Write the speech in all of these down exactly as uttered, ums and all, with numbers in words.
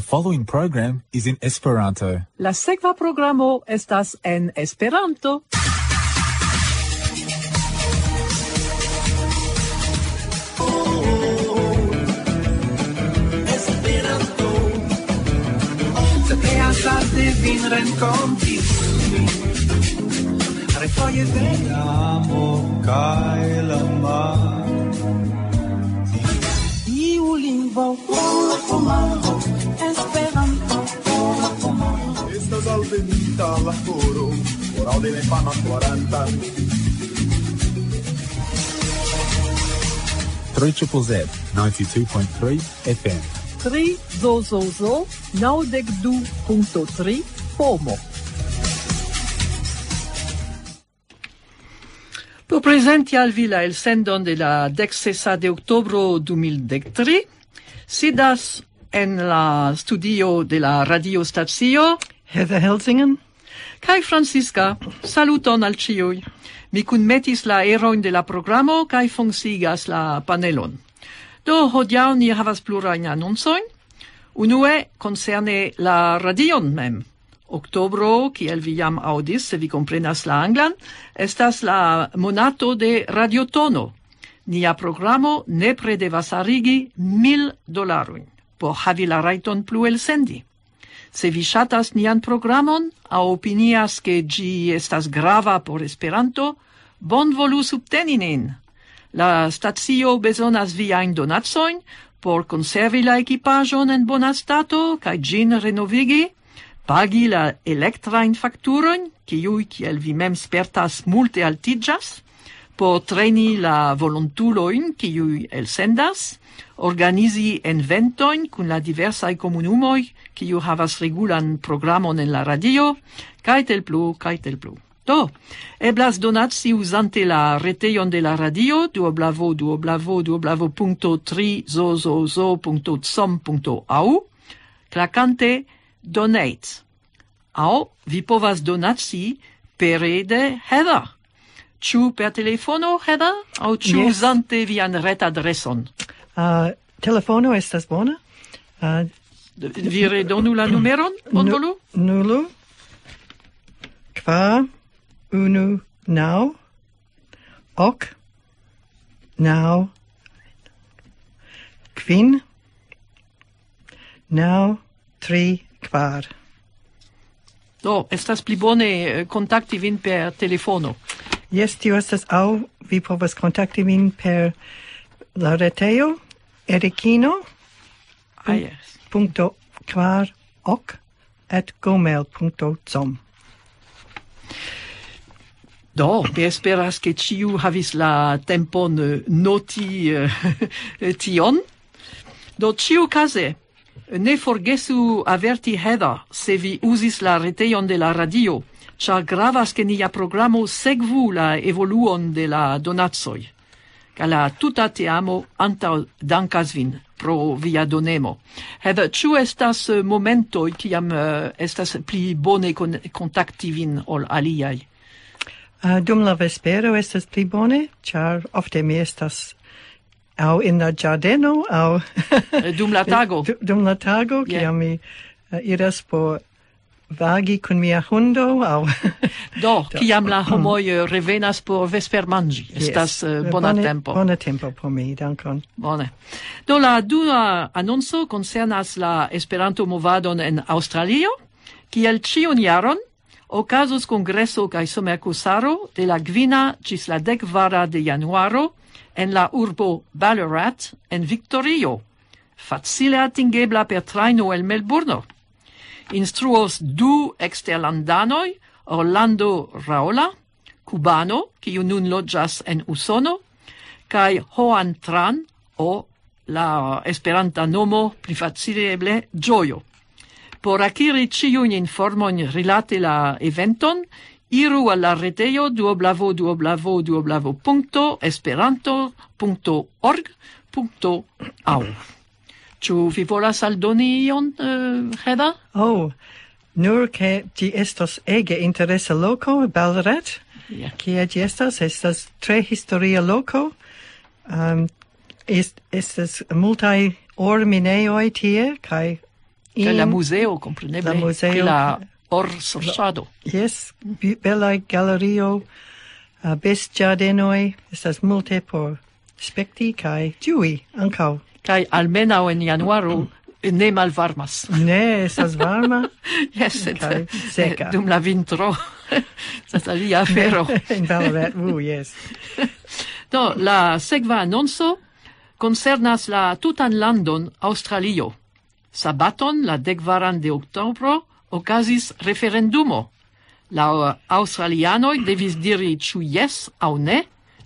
Following program is in Esperanto. La sekva programo estas en Esperanto. Esperanto. Se te hasas de vin renkonti. Refoje de amo kaj la mar. Iu lingvo. Esperanto. Estas alvenita la horo. Por aŭdi la infana Esperantan. Three triple Z, ninety-two point three F M. Tri zo zo zo, naŭdek du punkto tri, pomo. Por prezenti al vi la elsendon de la dek sesa de oktobro du mil dek tri, sidas en la studio de la radiostacio Heather Helsingen. Kaj Francisca, saluton al ĉiuj. Mi kunmetis la erojn de la programo kaj funkciigas la panelon. Do, hodiaŭ ni havas plurajn anoncojn. Unue, koncerne la radion mem. Oktobro, kiel vi jam aŭdis, se vi komprenas la anglan, estas la monato de radiotono. Nia programo nepre devas arigi mil dolarojn por havi la rajton plu elsendi. Se vi ŝatas nian programon aŭ opinias, ke ĝi estas grava por Esperanto, bonvolu subteni nin. La stacio bezonas viajn donacojn por konservi la ekipaĵon en bona stato kaj ĝin renovigi, pagi la elektrajn fakturojn, kiuj, kiel vi mem spertas, multe altiĝas, por treni la volontulojn, kiuj elsendas, organizi eventojn kun la diversaj komunumoj, kiu havas regulan programon en la radio, kaj tel plu, kaj tel plu. Do, eblas donaci uzante la retejon de la radio, www.trizozozo.com.au, klakante donate. Aŭ vi povas donaci pere de Heather. Ĉu per telefono, Heather, aŭ ĉu Yes. uzante vian retadreson? Uh, telefono estas bona. Uh, Vi redonu la numeron, bonvolu? Nulu, kvar, unu, naŭ, ok, naŭ, kvin, naŭ, tri, kvar. Do, estas pli bone, eh, kontakti vin per telefono. Jes, tio estas, aŭ vi povas kontakti min per la retejo, Erikino, Ah, yes. Punkto kvar ok at gmail punkto com. Do, mi esperas, ke ĉiu havis la tempon, eh, noti, eh, tion. Do, ĉiukaze, ne forgesu averti Heather, se vi uzis la retejon de la radio, ĉar gravas, ke nia programo sekvu la evoluon de la donacoj. Kaj la tuta teamo antaŭ dankas vin pro via donemo. Heather, ĉu estas, eh, momentoj, kiam, eh, estas pli bone kon-, kontakti vin ol aliaj? Ah, dum la vespero estas pli bone, ĉar ofte mi estas aŭ en la ĝardeno, aŭ Eh, dum la tago? Du-, dum la tago, Yeah. kiam mi, eh, iras por vagi kun mia hundo, aŭ Do, Do. kiam la homoj, eh, revenas por vespermanĝi, Yes. estas, eh, bona Bone, tempo. bona tempo por mi, dankon. Bone. Do, la dua anonco koncernas la Esperanto-movadon en Aŭstralio, kiel ĉiun jaron okazos kongreso kaj somerkusaro de la kvina ĝis la dek kvara de januaro en la urbo Ballarat en Victorio, facile atingebla per trajno el Melburno. Instruos du eksterlandanoj, Orlando Raola, kubano, kiu nun loĝas en Usono, kaj Joan Tran, o la esperanta nomo pli facile eble Ĝojo. Por akiri ĉiujn informojn rilate la eventon, iru al la retejo www.esperanto.org.au. Ĉu vi volas aldoni ion, eh, Heda? Oh, nur ke ĝi estos ege interesa loko, Ballarat. Ja. Kie ĝi estas? Estas tre historia loko. Ehm, est-, estas multaj orminejoj tie, kaj Kaj la muzeo, kompreneble, la muzeo, pri la orsorĉado. Jes, belaj galerio, uh, bestĝardenoj, estas multe por spekti kaj ĝui ankaŭ. Kaj almenaŭ en januaro ne malvarmas. Ne, estas varma. Jes, sed kaj seka. Dum la vintro estas alia afero. En Ballarat, uh, jes. Do, la sekva anonco koncernas la tutan landon Aŭstralio. Sabaton, la dekvaran de oktobro, okazis referendumo. La aŭstralianoj devis diri ĉu jes aŭ ne.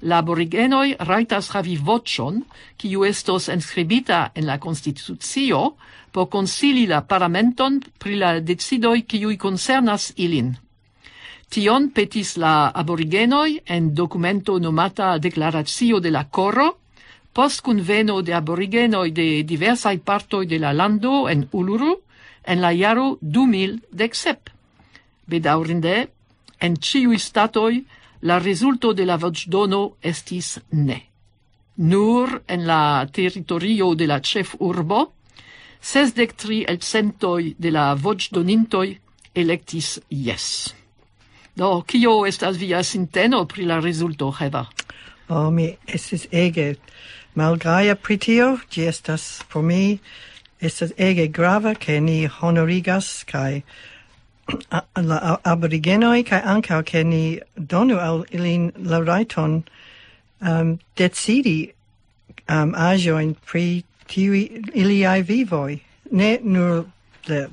La aborigenoj rajtas havi voĉon, kiu estos enskribita en la konstitucio, por konsili la parlamenton pri la decidoj, kiuj koncernas ilin. Tion petis la aborigenoj en dokumento nomata Deklaracio de la Koro, post kunveno de aborigenoj de diversaj partoj de la lando en Uluru en la jaro du mil dek sep. Bedaŭrinde, en ĉiuj statoj la rezulto de la voĉdono estis ne. Nur en la teritorio de la ĉefurbo, sesdek tri elcentoj de la voĉdonintoj elektis jes. Do, kio estas via sinteno pri la rezulto, Heva? Oh, mi estis ege malgaja pri tio. Ĝi estas por mi, estas ege grava, ke ni honorigas kaj a-, la a-, aborigenoj, kaj ankaŭ ke ni donu al ilin la rajton, um, decidi, um, aĵojn pri tiuj iliaj vivoj. Ne nur la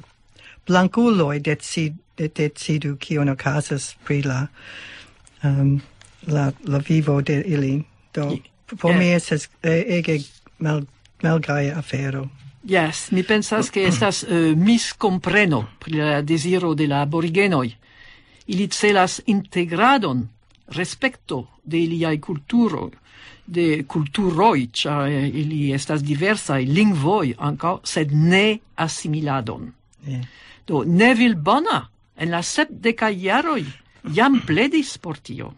blankuloj decid-, de-, decidu, kion okazas pri la, um, la, la vivo de ili. Do, por mi estas, eh, ege mal-, malgaja afero. Jes, mi pensas, ke estas, eh, miskompreno pri la deziro de la aborigenoj. Ili celas integradon, respekto de iliaj kulturo, de kulturoj, ĉar, eh, ili estas diversaj, lingvoj ankaŭ, sed ne asimiladon. Do, Neville Bona en la sepdekaj jaroj jam pledis por tio.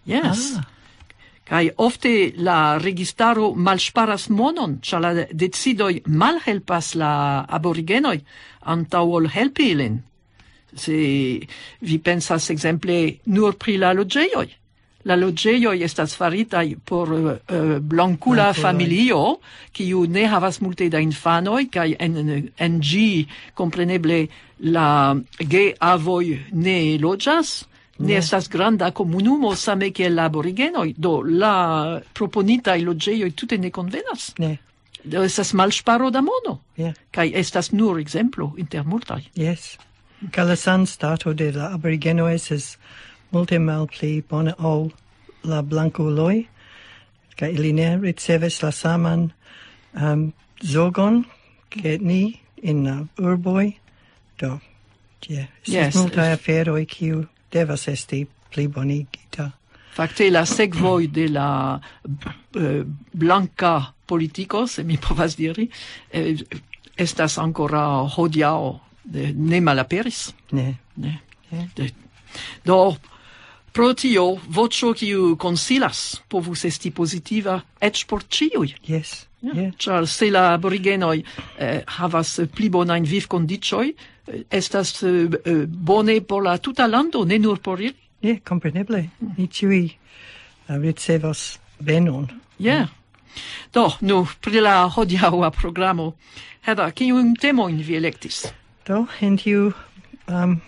Jes. Ah. Kaj ofte la registaro malŝparas monon, ĉar la decidoj malhelpas la aborigenoj antaŭ ol helpi ilin. Se vi pensas ekzemple nur pri la loĝejoj. La loĝejoj estas faritaj por, eh, blankula familio, kiu ne havas multe da infanoj, kaj en, en ĝi, kompreneble, la geavoj ne loĝas, ne estas granda komunumo, same kiel la aborigenoj. Do, la proponitaj loĝejoj tute ne konvenas. Ne. Do, estas malŝparo da mono. Ja. Kaj estas nur ekzemplo inter multaj. Jes. Kaj la sanstato de la aborigenoj estas multe malpli bona ol la blankuloj. Kaj ili ne ricevas la saman, um, zorgon ke ni en la urboj. Do, ja, estas multaj aferoj, kiu devas esti plibonigita. Fakte, la sekvoj de la, eh, blanka politiko, se mi povas diri, eh, estas ankoraŭ hodiaŭ, eh, ne malaperis. Ne. Ne. Ne. De-, do, pro tio, voĉo, kiu konsilas, povus esti pozitiva eĉ por ĉiuj. Jes. Ja, jes. Ĉar se la aborigenoj, eh, havas pli bonajn vivkondiĉoj, eh, estas, eh, eh, bone por la tuta lando, ne nur por ili. Ja, kompreneble. Ni ĉiuj, eh, ricevos benon. Ja. Do, nu, pri la hodiaŭa programo. Heva, kiujn temojn vi elektis? Do, en tiu, um,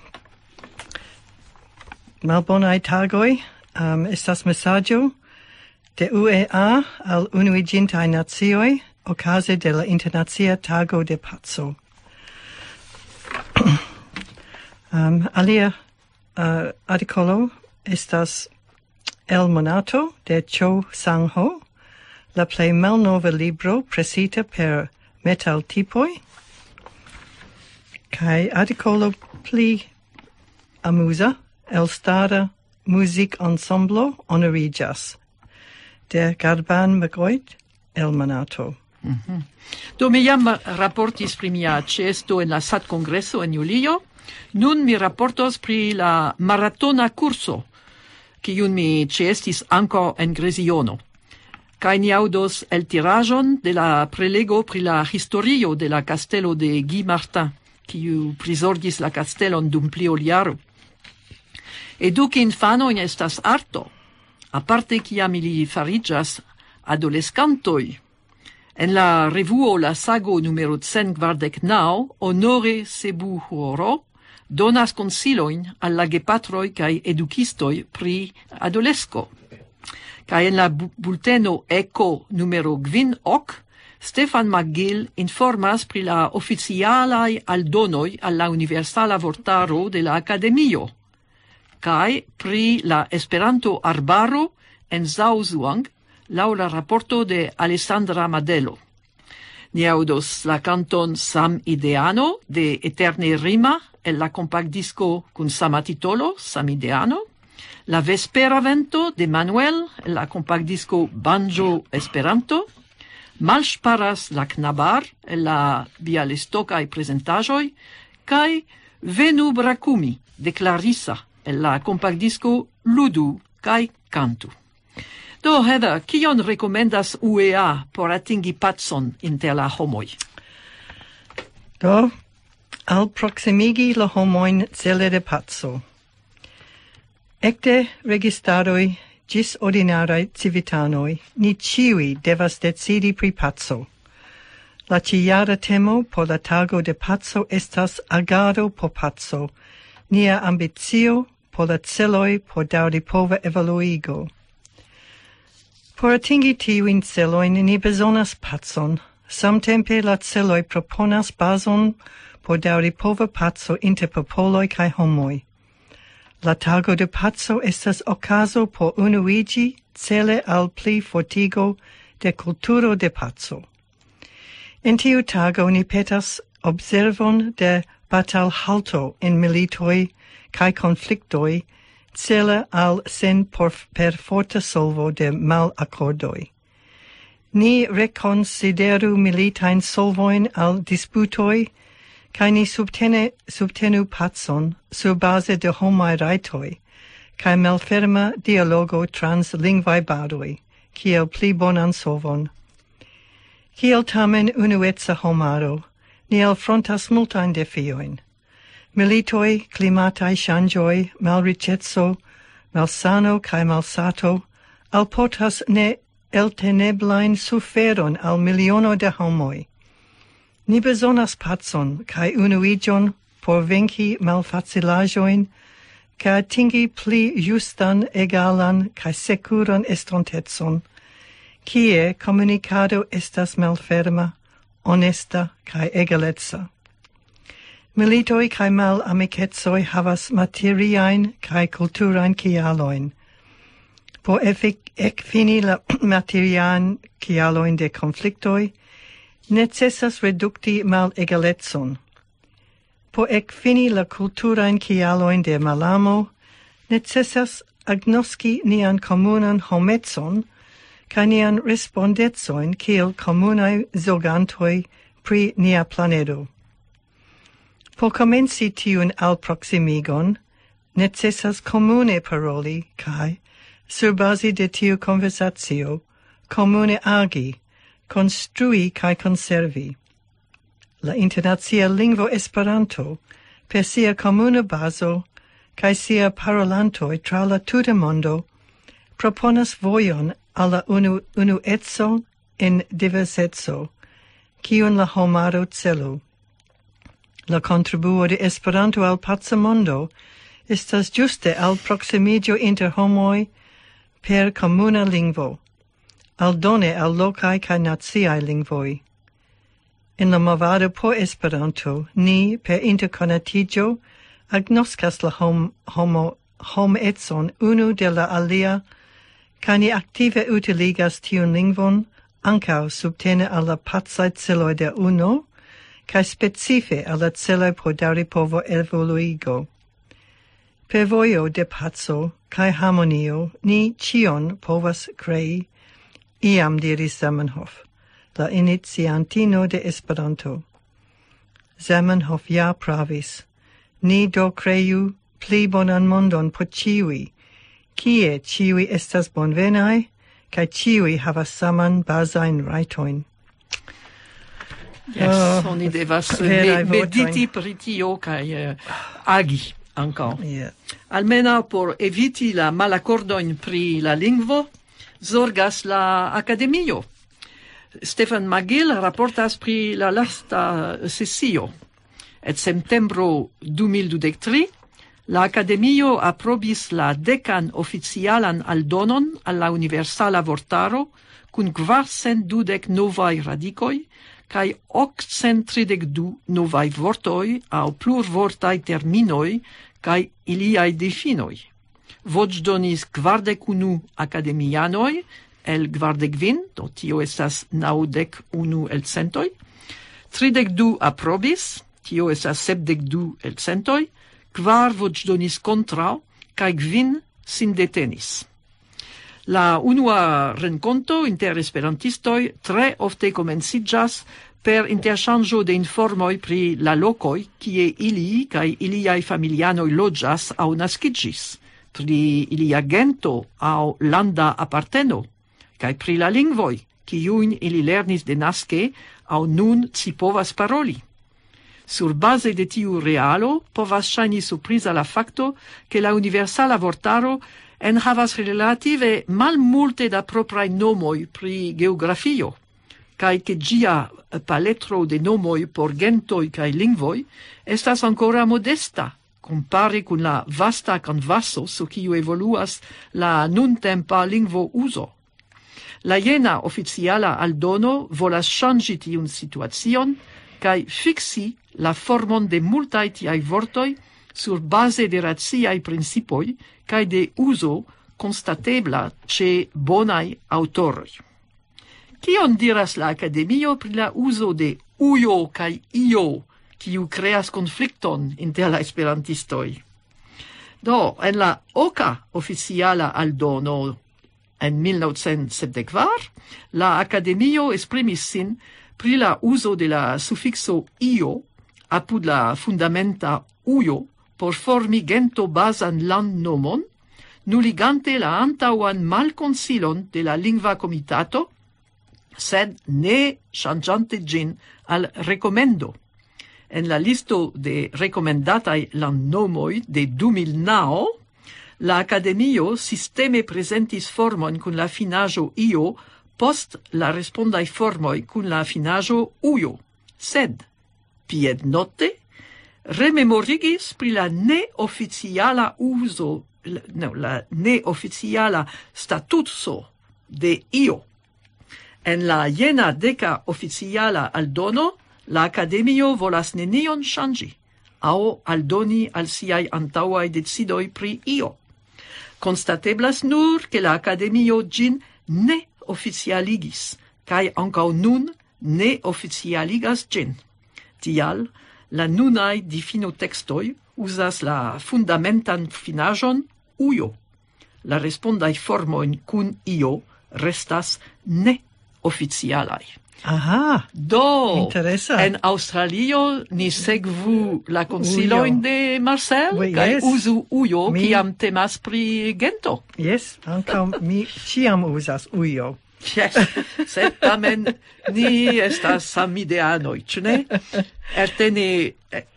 malbonaj tagoj, um, estas mesaĝo de U E A al Unuiĝintaj Nacioj okaze de la Internacia Tago de Paco. Um, alia, uh, artikolo estas El Monato de Cho Sang-ho, la plej malnova libro presita per metaltipoj, kaj artikolo pli amuza, elstara muzikensemble honoriĝas de Garban McGoit El Monato. Mhm. Do, mi jam raportis pri mia ĉeesto en la sat-kongreso en julio. Nun mi raportos pri la maratona kurso, kiun mi ĉeestis ankaŭ en Greziono. Kaj ni aŭdos eltiraĵon de la prelego pri la historio de la kastelo de Guy Martin, kiu prizorgis la kastelon dum pli ol jaro. Eduki infanojn estas arto, aparte kiam ili fariĝas adoleskantoj. En la revuo La Sago numero cent kvardek naŭ, Honore Sebu Huoro donas konsilojn al la gepatroj kaj edukistoj pri adolesko. Kaj en la bu-, bulteno Eko numero kvin ok, Stefan McGill informas pri la oficialaj aldonoj al la Universala Vortaro de la Akademio, kaj pri la Esperanto-arbaro en Zauzuang, laŭ la raporto de Alessandra Madelo. Ni aŭdos la kanton Sam Ideano de Eterne Rima el la kompaktdisko kun sama titolo, Sam Ideano, la Vespera Vento de Manuel el la kompaktdisko Banjo Esperanto, Malŝparas la knabar el la Bialystokaj prezentaĵoj, kaj Venu Brakumi de Clarissa el la kompaktdisko Ludu kaj Kantu. Do, Heather, kion rekomendas U E A por atingi pacon inter la homoj? Do, al proximigi la homojn cele de paco. Ekde registaroj ĝis ordinaraj civitanoj, ni ĉiuj devas decidi pri paco. La ĉijara temo por la tago de paco estas agado por paco, nia ambicio por la celoj por daŭripova evoluigo. Por atingi tiujn celojn ni bezonas pacon, samtempe la celoj proponas bazon por daŭripova paco inter popoloj kaj homoj. La tago de paco estas okazo por unuiĝi cele al pli fortigo de kulturo de paco. En tiu tago ni petas observon de batalhalto en militoj kaj konfliktoj cele al sen por-, perforta solvo de malakordoj. Ni rekonsideru militajn solvojn al disputoj, kaj ni subtene-, subtenu pacon sur baze de homaj rajtoj, kaj malferma dialogo trans lingvaj baroj, kiel pli bonan solvon. Kiel tamen unueca homaro, ni alfrontas multajn defiojn. Militoj, klimataj ŝanĝoj, malriĉeco, malsano kaj malsato alportas ne elteneblajn suferon al miliono de homoj. Ni bezonas pacon kaj unuiĝon por venki malfacilaĵojn kaj atingi pli justan, egalan kaj sekuran estontecon, kie komunikado estas malferma, onesta kaj egaleca. Militoj kaj malamikecoj havas materiajn kaj kulturajn kialojn. Por efik-, ekfini la materiajn kialojn de konfliktoj, necesas redukti malegalecon. Por ekfini la kulturajn kialojn de malamo, necesas agnoski nian komunan homecon kaj nian respondecojn kiel komunaj zorgantoj pri nia planedo. Por komenci tiun alproksimigon, necesas komune paroli kaj, sur bazi de tiu konversacio, komune agi, konstrui kaj konservi. La internacia lingvo Esperanto, per sia komuna bazo kaj sia parolantoj tra la tuta mondo, proponas vojon al la unu-, unueco en diverseco, kiun la homaro celu. La kontribuo de Esperanto al paca mondo estas ĝuste al proksimiĝo inter homoj per komuna lingvo, aldone al lokaj kaj naciaj lingvoj. En la movado por Esperanto, ni per interkonatiĝo agnoskas la hom-, homo-, homecon unu de la alia, kaj ni aktive utiligas tiun lingvon ankaŭ subtene al la pacaj celoj de uno, kaj specife al la celoj por daŭripovo evoluigo. Per vojo de paco kaj harmonio ni ĉion povas krei, iam diris Zamenhof, la iniciantino de Esperanto. Zamenhof ja pravis. Ni do kreu pli bonan mondon por ĉiuj, kie ĉiuj estas bonvenaj, kaj ĉiuj havas saman bazajn rajtojn. Yes, oh, oni devas mediti pri tio kaj uh, agi ankaŭ. Yeah. Almenaŭ por eviti la malakordojn pri la lingvo, zorgas la akademio. Stefan Magil raportas pri la lasta sesio. En septembro du mil dudek tri, la akademio aprobis la dekan oficialan aldonon al la universala vortaro kun kvarcent dudek novaj radikoj kaj okcent tridek du novaj vortoj aŭ plurvortaj terminoj kaj iliaj difinoj. Voĉdonis kvardek unu akademianoj el kvardek kvin, do tio estas naŭdek unu elcentoj, tridek du aprobis, tio estas sepdek du elcentoj, kvar voĉdonis kontraŭ, kaj kvin sin detenis. La unua renkonto inter esperantistoj tre ofte komenciĝas per interŝanĝo de informoj pri la lokoj, kie ili kaj iliaj familianoj loĝas aŭ naskiĝis, pri ilia gento aŭ landa aparteno, kaj pri la lingvoj, kiujn ili lernis denaske aŭ nun ci povas paroli. Surbaze de tiu realo povas ŝajni surpriza la fakto, ke la universala vortaro enhavas relative malmulte da propraj nomoj pri geografio, kaj ke ĝia paletro de nomoj por gentoj kaj lingvoj estas ankoraŭ modesta, kompare kun la vasta kanvaso, sur kiu evoluas la nuntempa lingvo uzo. La jena oficiala aldono volas ŝanĝi tiun situacion kaj fiksi la formon de multaj tiaj vortoj sur baze de raciaj principoj kaj de uzo konstatebla ĉe bonaj aŭtoroj. Kion diras la akademio pri la uzo de ujo kaj io, kiu kreas konflikton inter la esperantistoj? Do, en la oka oficiala aldono en mil novcent sepdek kvar, la akademio esprimis sin pri la uzo de la sufikso io apud la fundamenta ujo por formi gento-bazan landnomon, nuligante la antaŭan malkonsilon de la lingva komitato, sed ne ŝanĝante ĝin al rekomendo. En la listo de rekomendataj landnomoj de du mil naŭ, la akademio sisteme prezentis formon kun la finaĵo io post la respondaj formoj kun la finaĵo ujo. Sed, piednote, rememorigis pri la neoficiala uzo, la, no, la neoficiala statuso de io. En la jena deka oficiala aldono, la akademio volas nenion ŝanĝi aŭ aldoni al siaj antaŭaj decidoj pri io. Konstateblas nur, ke la akademio ĝin ne oficialigis, kaj ankaŭ nun ne oficialigas ĝin. Tial, la nunaj difinotekstoj uzas la fundamentan finaĵon ujo. La respondaj formojn kun io restas neoficialaj. Aha. Do, interesa. En Aŭstralio ni sekvu la konsilojn de Marcel, oui, kaj yes, uzu ujo, mi, kiam temas pri gento. Yes, ankaŭ mi ĉiam uzas ujo. Yes, sed tamen ni estas samideanoj, ĉu ne? Eterne,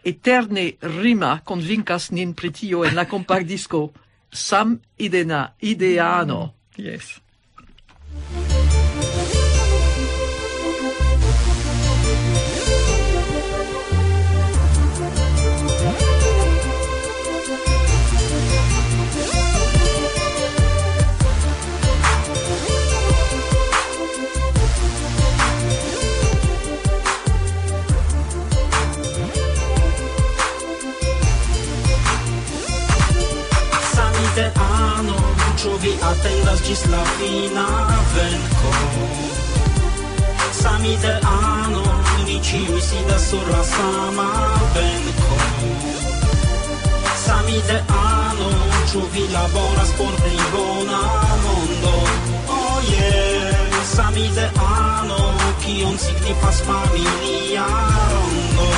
eterne rima konvinkas nin pri tio en la kompaktdisko. Sam idena, ideano. Yes. Samideano, ĉu vi atendas ĝis la fina venko? Samideano, ni ĉiuj sidas sur la sama benko. Samideano, ĉu vi laboras por pli bona mondo? Oh yeah, samideano, kion signifas familia rondo?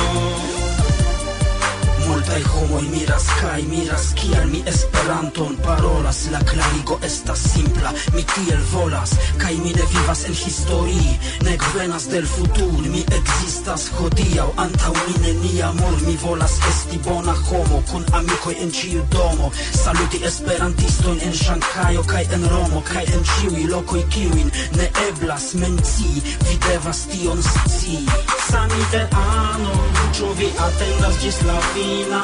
Multe Kaj homoj miras, kaj miras, kial mi Esperanton parolas. La klarigo estas simpla, mi tiel volas, kaj mi ne vivas en historii, nek venas del futur. Mi ekzistas hodiaŭ, antaŭ mi nenia mur. Mi volas esti bona homo, kun amikoj en ĉiu domo. Saluti esperantistojn en Ŝanhajo kaj en Romo, kaj en ĉiuj lokoj, kiujn ne eblas mencii. Vi devas tion scii. Samideano, ĉu vi atendas ĝis la fina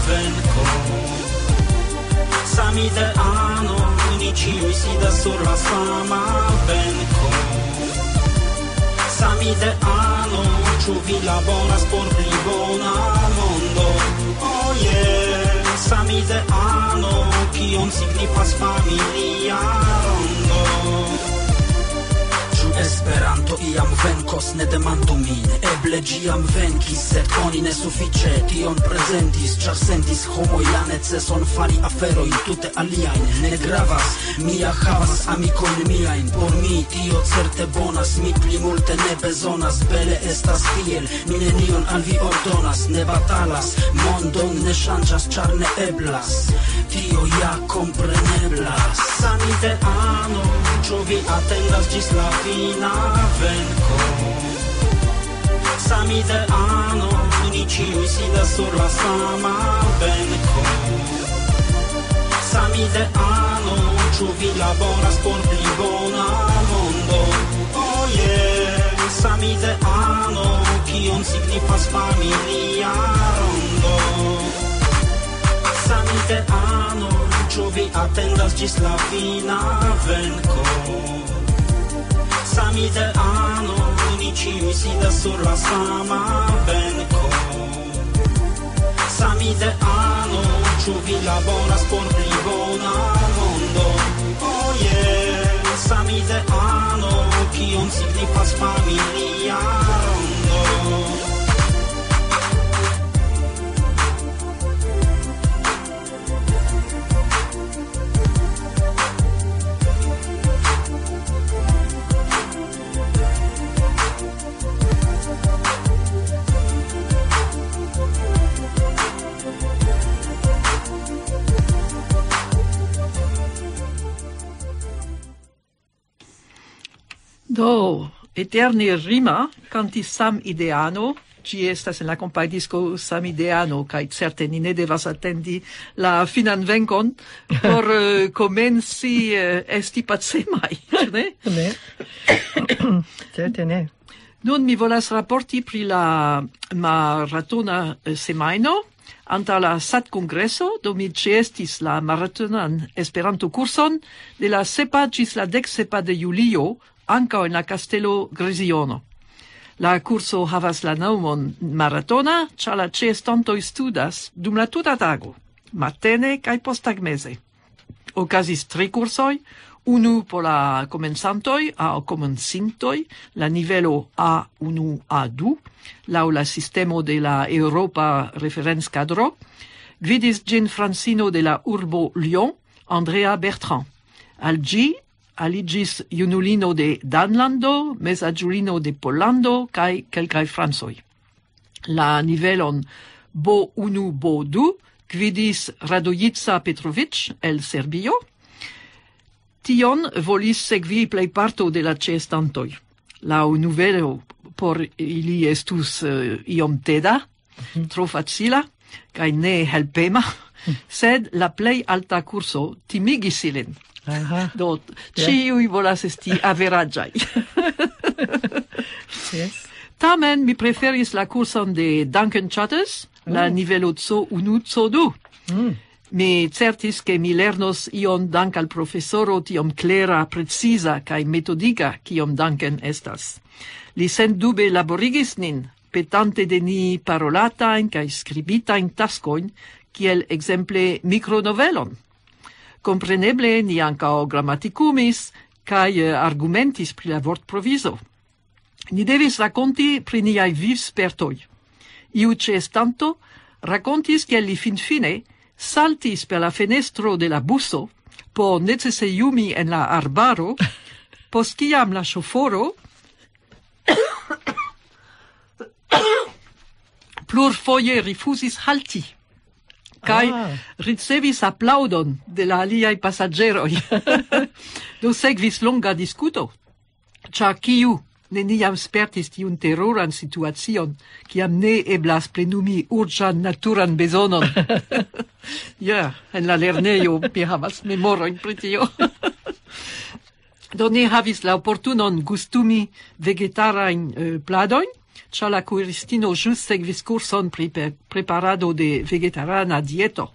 venko? Samideano, ni ĉiuj sidas sur la sama benko. Samideano, ĉu vi laboras por pli bona mondo? Oh yeah. Samideano, kion signifas familia rondo? Ĉu Esperanto iam venkos? Ne demandu min. Eble ĝi jam venkis, sed oni ne sufiĉe tion prezentis, ĉar sentis homoj la neceson fari aferojn tute aliajn. Ne gravas, mi ja havas amikojn miajn. Por mi tio certe bonas, mi pli multe ne bezonas. Bele estas tiel, mi nenion al vi ordonas. Ne batalas, mondon ne ŝanĝas, ĉar ne eblas. Tio ja kompreneblas. Samideano, ĉu vi atendas ĝis la fina venko? Samideano, ni ĉiuj sidas sur la sama benko. Samideano, ĉu vi laboras por pli bona mondo? Oh yeah. Samideano, kion signifas familia rondo? Samideano, ĉu vi atendas ĝis la fina venko? Samideano, ni ĉiuj sidas sur la sama benko. Samideano, ĉu vi laboras por pli bona mondo? Oh yeah. Samideano, kion signifas familia rondo? Do, eterne rima kantis Sam Ideano, ĝi estas en la kompajdisko Sam Ideano, kaj certe ni ne devas atendi la finan venkon por eh, komenci eh, esti pacemaj, ĉu ne? Ne. Certe ne. Nun mi volas raporti pri la maratona eh, semajno. Antaŭ la SAT-kongreso do mi ĉeestis la maratonan Esperanto-kurson de la sepa ĝis la dek sepa de julio, ankaŭ en la kastelo Greziono. La kurso havas la nomon maratona, ĉar la ĉeestantoj studas dum la tuta tago, matene kaj posttagmeze. Okazis tri kursoj, unu por la komencantoj aŭ komencintoj, la nivelo A unu A du, laŭ la sistemo de la Eŭropa Referencadro. Gvidis ĝin francino de la urbo Lyon, Andrea Bertrand. Al ĝi aliĝis junulino de Danlando, mezaĝulino de Pollando kaj kelkaj francoj. La nivelon B unu B du gvidis Radojica Petrovic el Serbio. Tion volis sekvi plejparto de la ĉeestantoj. La nivelo por ili estus eh, iom teda, tro facila kaj ne helpema, sed la plej alta kurso timigis ilin. Aha. Do, ĉiuj volas esti averaĝaj. Yes. Tamen mi preferis la kurson de Duncan Chatters, la nivelo C unu C du. Mi certis, ke mi lernos ion dank al profesoro tiom klera, preciza kaj metodika, kiom Duncan estas. Li sendube laborigis nin, petante de ni parolatajn kaj skribitajn taskojn, kiel ekzemple mikronovelon. Kompreneble ni ankaŭ gramatikumis kaj eh, argumentis pri la vortprovizo. Ni devis rakonti pri niaj vivspertoj. Iu ĉeestanto rakontis, ke li finfine saltis per la fenestro de la buso por necesejumi en la arbaro, post kiam la ŝoforo plurfoje rifuzis halti. kaj Ah. ricevis aplaŭdon de la aliaj pasaĝeroj. Do sekvis longa diskuto, ĉar kiu neniam spertis tiun teruran situacion, kiam ne eblas plenumi urĝan naturan bezonon. Ja, en la lernejo mi havas memorojn pri tio. Do ni havis la oportunon gustumi vegetarajn, eh, pladojn, ĉar la kuiristino ĵus sekvis kurson pri pe-, preparado de vegetarana dieto.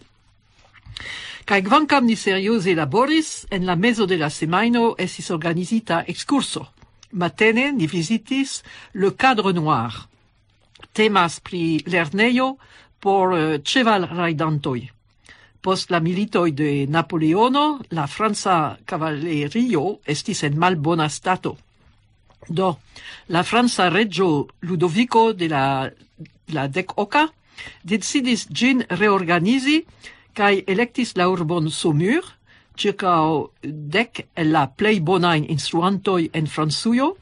Kaj kvankam ni serioze laboris, en la mezo de la semajno estis organizita ekskurso. Matene ni vizitis Le Cadre Noir. Temas pri lernejo por, eh, ĉevalrajdantoj. Post la militoj de Napoleono, la franca kavalerio estis en malbona stato. Do, la franca reĝo Ludoviko de la, la dek oka decidis ĝin reorganizi kaj elektis la urbon Saumur, ĉirkaŭ dek el la plej bonajn instruantoj en Francujo,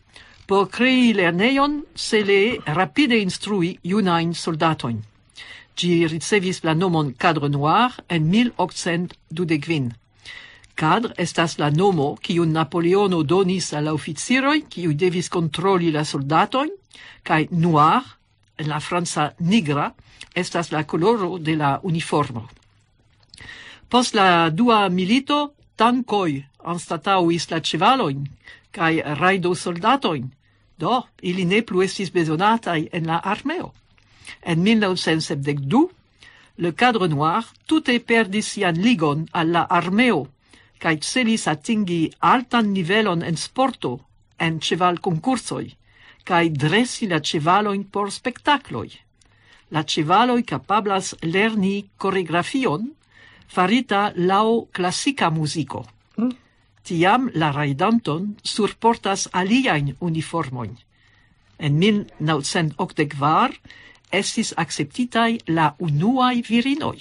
por krei lernejon cele rapide instrui junajn soldatojn. Ĝi ricevis la nomon Cadre Noir en mil okcent dudek kvin. Cadre estas la nomo, kiun Napoleono donis al la oficiroj, kiuj devis kontroli la soldatojn, kaj noir, en la franca nigra, estas la koloro de la uniformo. Post la dua milito, tankoj anstataŭis la ĉevalojn kaj rajdosoldatojn. Do, ili ne plu estis bezonataj en la armeo. En mil naŭcent sepdek du, Le Cadre Noir tute perdis sian ligon al la armeo, kaj celis atingi altan nivelon en sporto, en ĉevalkonkursoj, kaj dresi la ĉevalojn por spektakloj. La ĉevaloj kapablas lerni koregrafion farita laŭ klasika muziko. Mm. Tiam la rajdanton surportas aliajn uniformojn. En mil naŭcent okdek kvar estis akceptitaj la unuaj virinoj.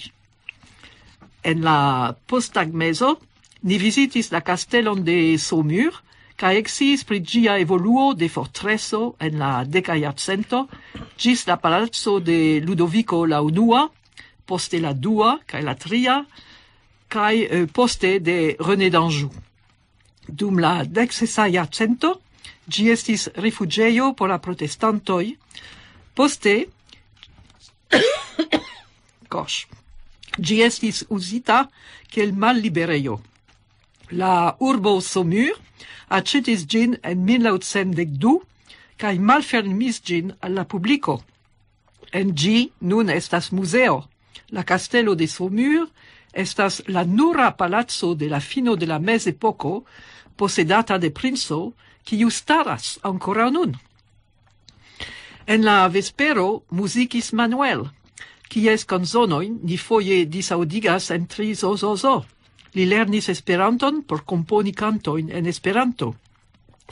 En la posttagmezo ni vizitis la kastelon de Saumur, kaj eksciis pri ĝia evoluo de fortreso en la deka jarcento ĝis la palaco de Ludoviko la unua, poste la dua kaj la tria, kaj, eh, poste de René d'Anjou. Dum la deksesa jarcento ĝi estis rifuĝejo por la protestantoj. Poste, gosh, ĝi estis uzita kiel malliberejo. La urbo Saumur aĉetis ĝin en mil naŭcent dek du kaj malfermis ĝin al la publiko. En ĝi nun estas muzeo. La kastelo de Saumur estas la nura palaco de la fino de la mezepoko posedata de princo, kiu staras ankoraŭ nun. En la vespero muzikis Manuel, kies kanzonojn ni foje disaŭdigas en tri zo zo zo. Li lernis Esperanton por komponi kantojn en Esperanto.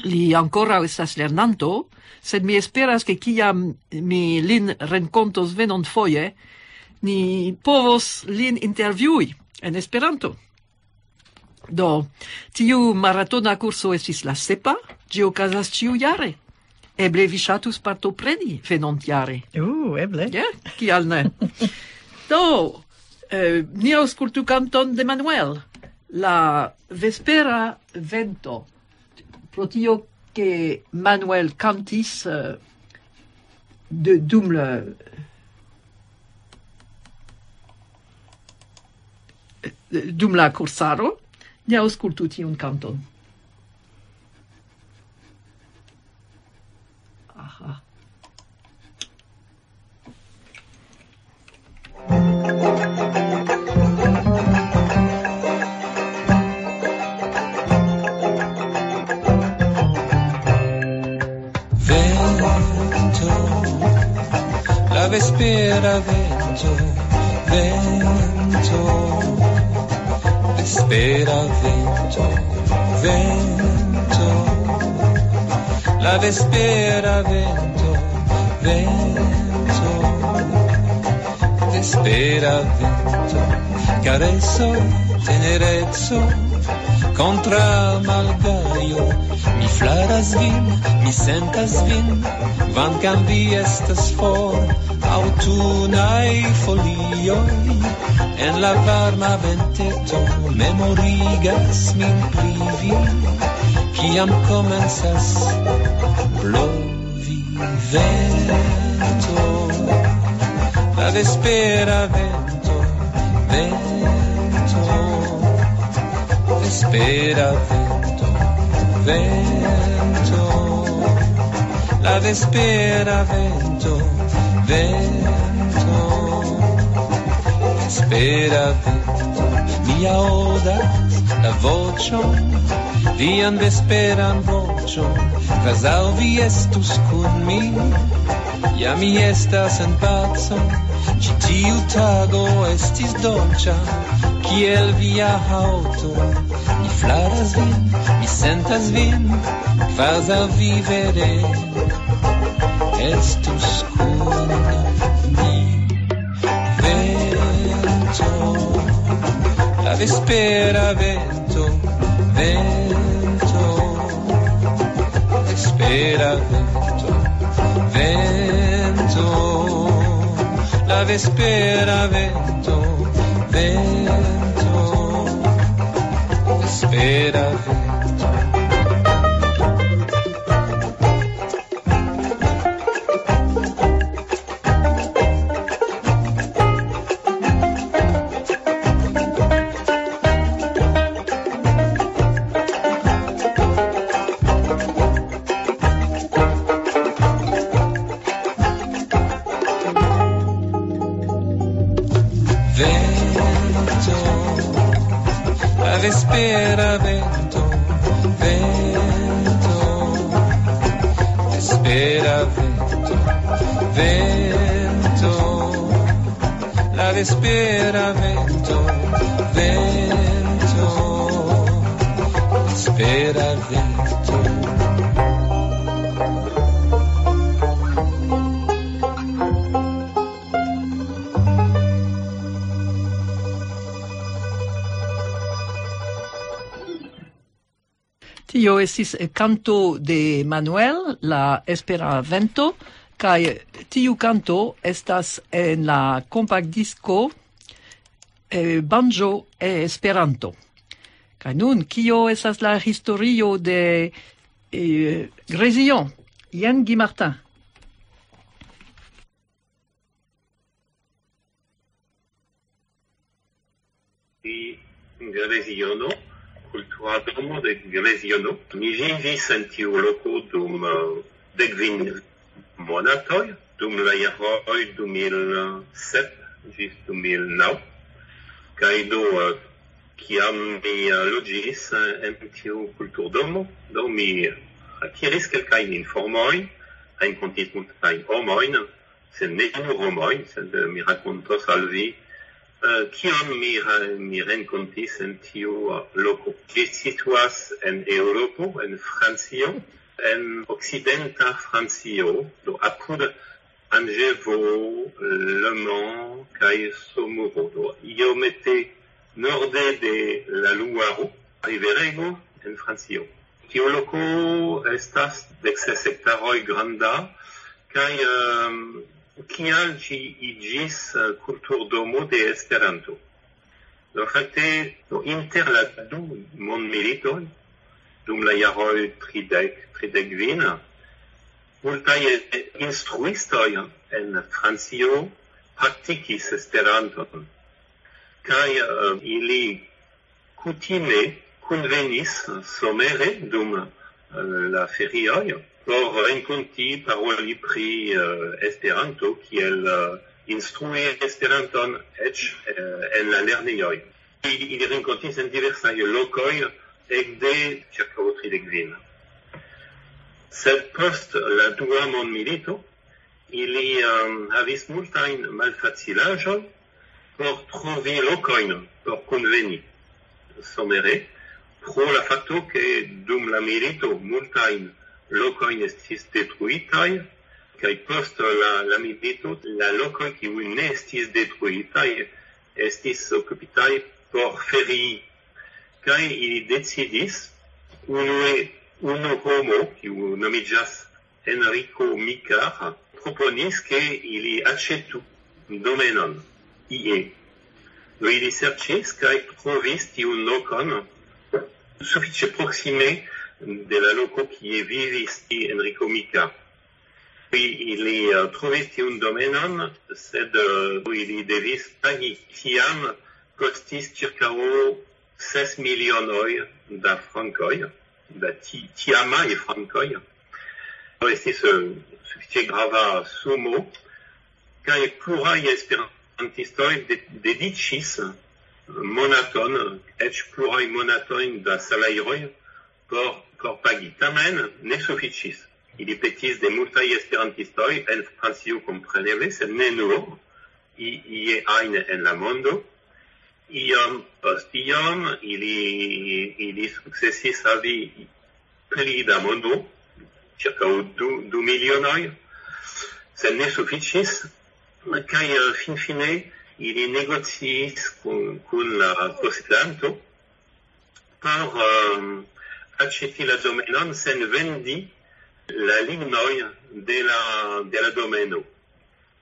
Li ankoraŭ estas lernanto, sed mi esperas, ke kiam mi lin renkontos venonfoje, ni povos lin intervjui en Esperanto. Do, tiu maratona kurso estis la sepa, ĝi okazas ĉiujare. Eble vi ŝatus partopreni venontjare. Uh, eble. Ja, kial ne? Do, eh, ni aŭskultu kanton de Manuel, la vespera vento. Pro tio, ke Manuel kantis, eh, de, dum la, dum la kursaro, ni aŭskultu tiun kanton. Aha. Vento, la vespera vento, vento, vespera vento, vento, la vespera vento, vento, vespera vento, carezo, tenerezo, contra malgaio, mi flaras vin, mi sentas vin, kvankam vi estas for, aŭtunaj folioj. En la varma venteto memorigas min pri vi, kiam komencas blovi vento, la vespera vento, vento, vespera vento, vento, la vespera vento, vento, vespera vento. Mi aŭdas la voĉon, vian vesperan voĉon, kvazaŭ vi estus kun mi. Ja mi estas en paco, ĉi tiu tago estis dolĉa, kiel via haŭto. Mi flaras vin, mi sentas vin, kvazaŭ vi vere estus kun mi. Vento, la vespera vento, vento, vespera vento, vento, la vespera vento, vento, vespera vento. Vento, la vespera vento, vento, vespera vento, vento, la vespera vento, vento, vespera vento. Tio estis, eh, kanto de Manuel, la Espera Vento, kaj tiu kanto estas en la kompaktdisko, eh, Banjo e Esperanto. Kaj nun, kio estas la historio de, eh, Grezio? Jen Guy Martin. Di Greziono, kultura domo de Greziono. Mi vivis en tiu loko dum, eh, dek kvin monatoj, dum la jaroj du mil sep ĝis du mil naŭ. Kaj do, eh, kiam mi, eh, loĝis, eh, en tiu kulturdomo, do mi akiris kelkajn informojn, renkontis multajn homojn, sed ne nur homojn, sed, eh, mi rakontos al vi, eh, kion mi ra-, mi renkontis en tiu, eh, loko. Ĝi situas en Eŭropo, en Francio, en okcidenta Francio, do apud Anĝevo, Le Mans kaj Somoro, do iomete norde de la Luaro, riverego en Francio. Tiu loko estas dek ses hektaroj granda, kaj, ehm, kial ĝi iĝis, eh, kulturdomo de Esperanto? Do, fakte, do, inter la du mondmilitoj, dum la jaroj tridek, tridek kvin, multaj instruistoj en Francio praktikis Esperanton, kaj, eh, ili kutime kunvenis somere dum, eh, la ferioj por renkonti, paroli pri, eh, Esperanto, kiel, eh, instrui Esperanton eĉ, eh, en la lernejoj. Ili, ili renkontis en diversaj lokoj ekde ĉirkaŭ tridek kvin. Sed post la dua mondmilito, ili, ehm, havis multajn malfacilaĵojn por trovi lokojn por kunveni somere, pro la fakto, ke dum la milito multajn lokojn estis detruitaj, kaj post la, la milito la lokoj, kiuj ne estis detruitaj, estis okupitaj por ferii. Kaj ili decidis, unue, unu homo, kiu nomiĝas Enrico Micar, proponis, ke ili aĉetu domenon. ie. Do ili serĉis kaj trovis tiun lokon sufiĉe proksime de la loko, kie vivis Enrico Mica. Ili, ili eh, trovis tiun domenon, sed eh, ili devis pagi. Tiam kostis ĉirkaŭ ses milionoj da frankoj, da ti, tiamaj frankoj. Do estis eh, sufiĉe grava sumo, kaj pluraj esperantistoj de, dediĉis monaton, eĉ pluraj monatojn da salajroj por, por pagi. Tamen ne sufiĉis. Ili petis de multaj esperantistoj en Francio, kompreneble, sed ne nur, i- ie ajn en la mondo. Iom post iom ili, ili sukcesis havi pli da mondo, ĉirkaŭ du, du milionoj, sed ne sufiĉis. Kaj eh, finfine ili negociis kun, kun la posedanto por um, aĉeti la domenon sen vendi la lignoj de la, de la domeno.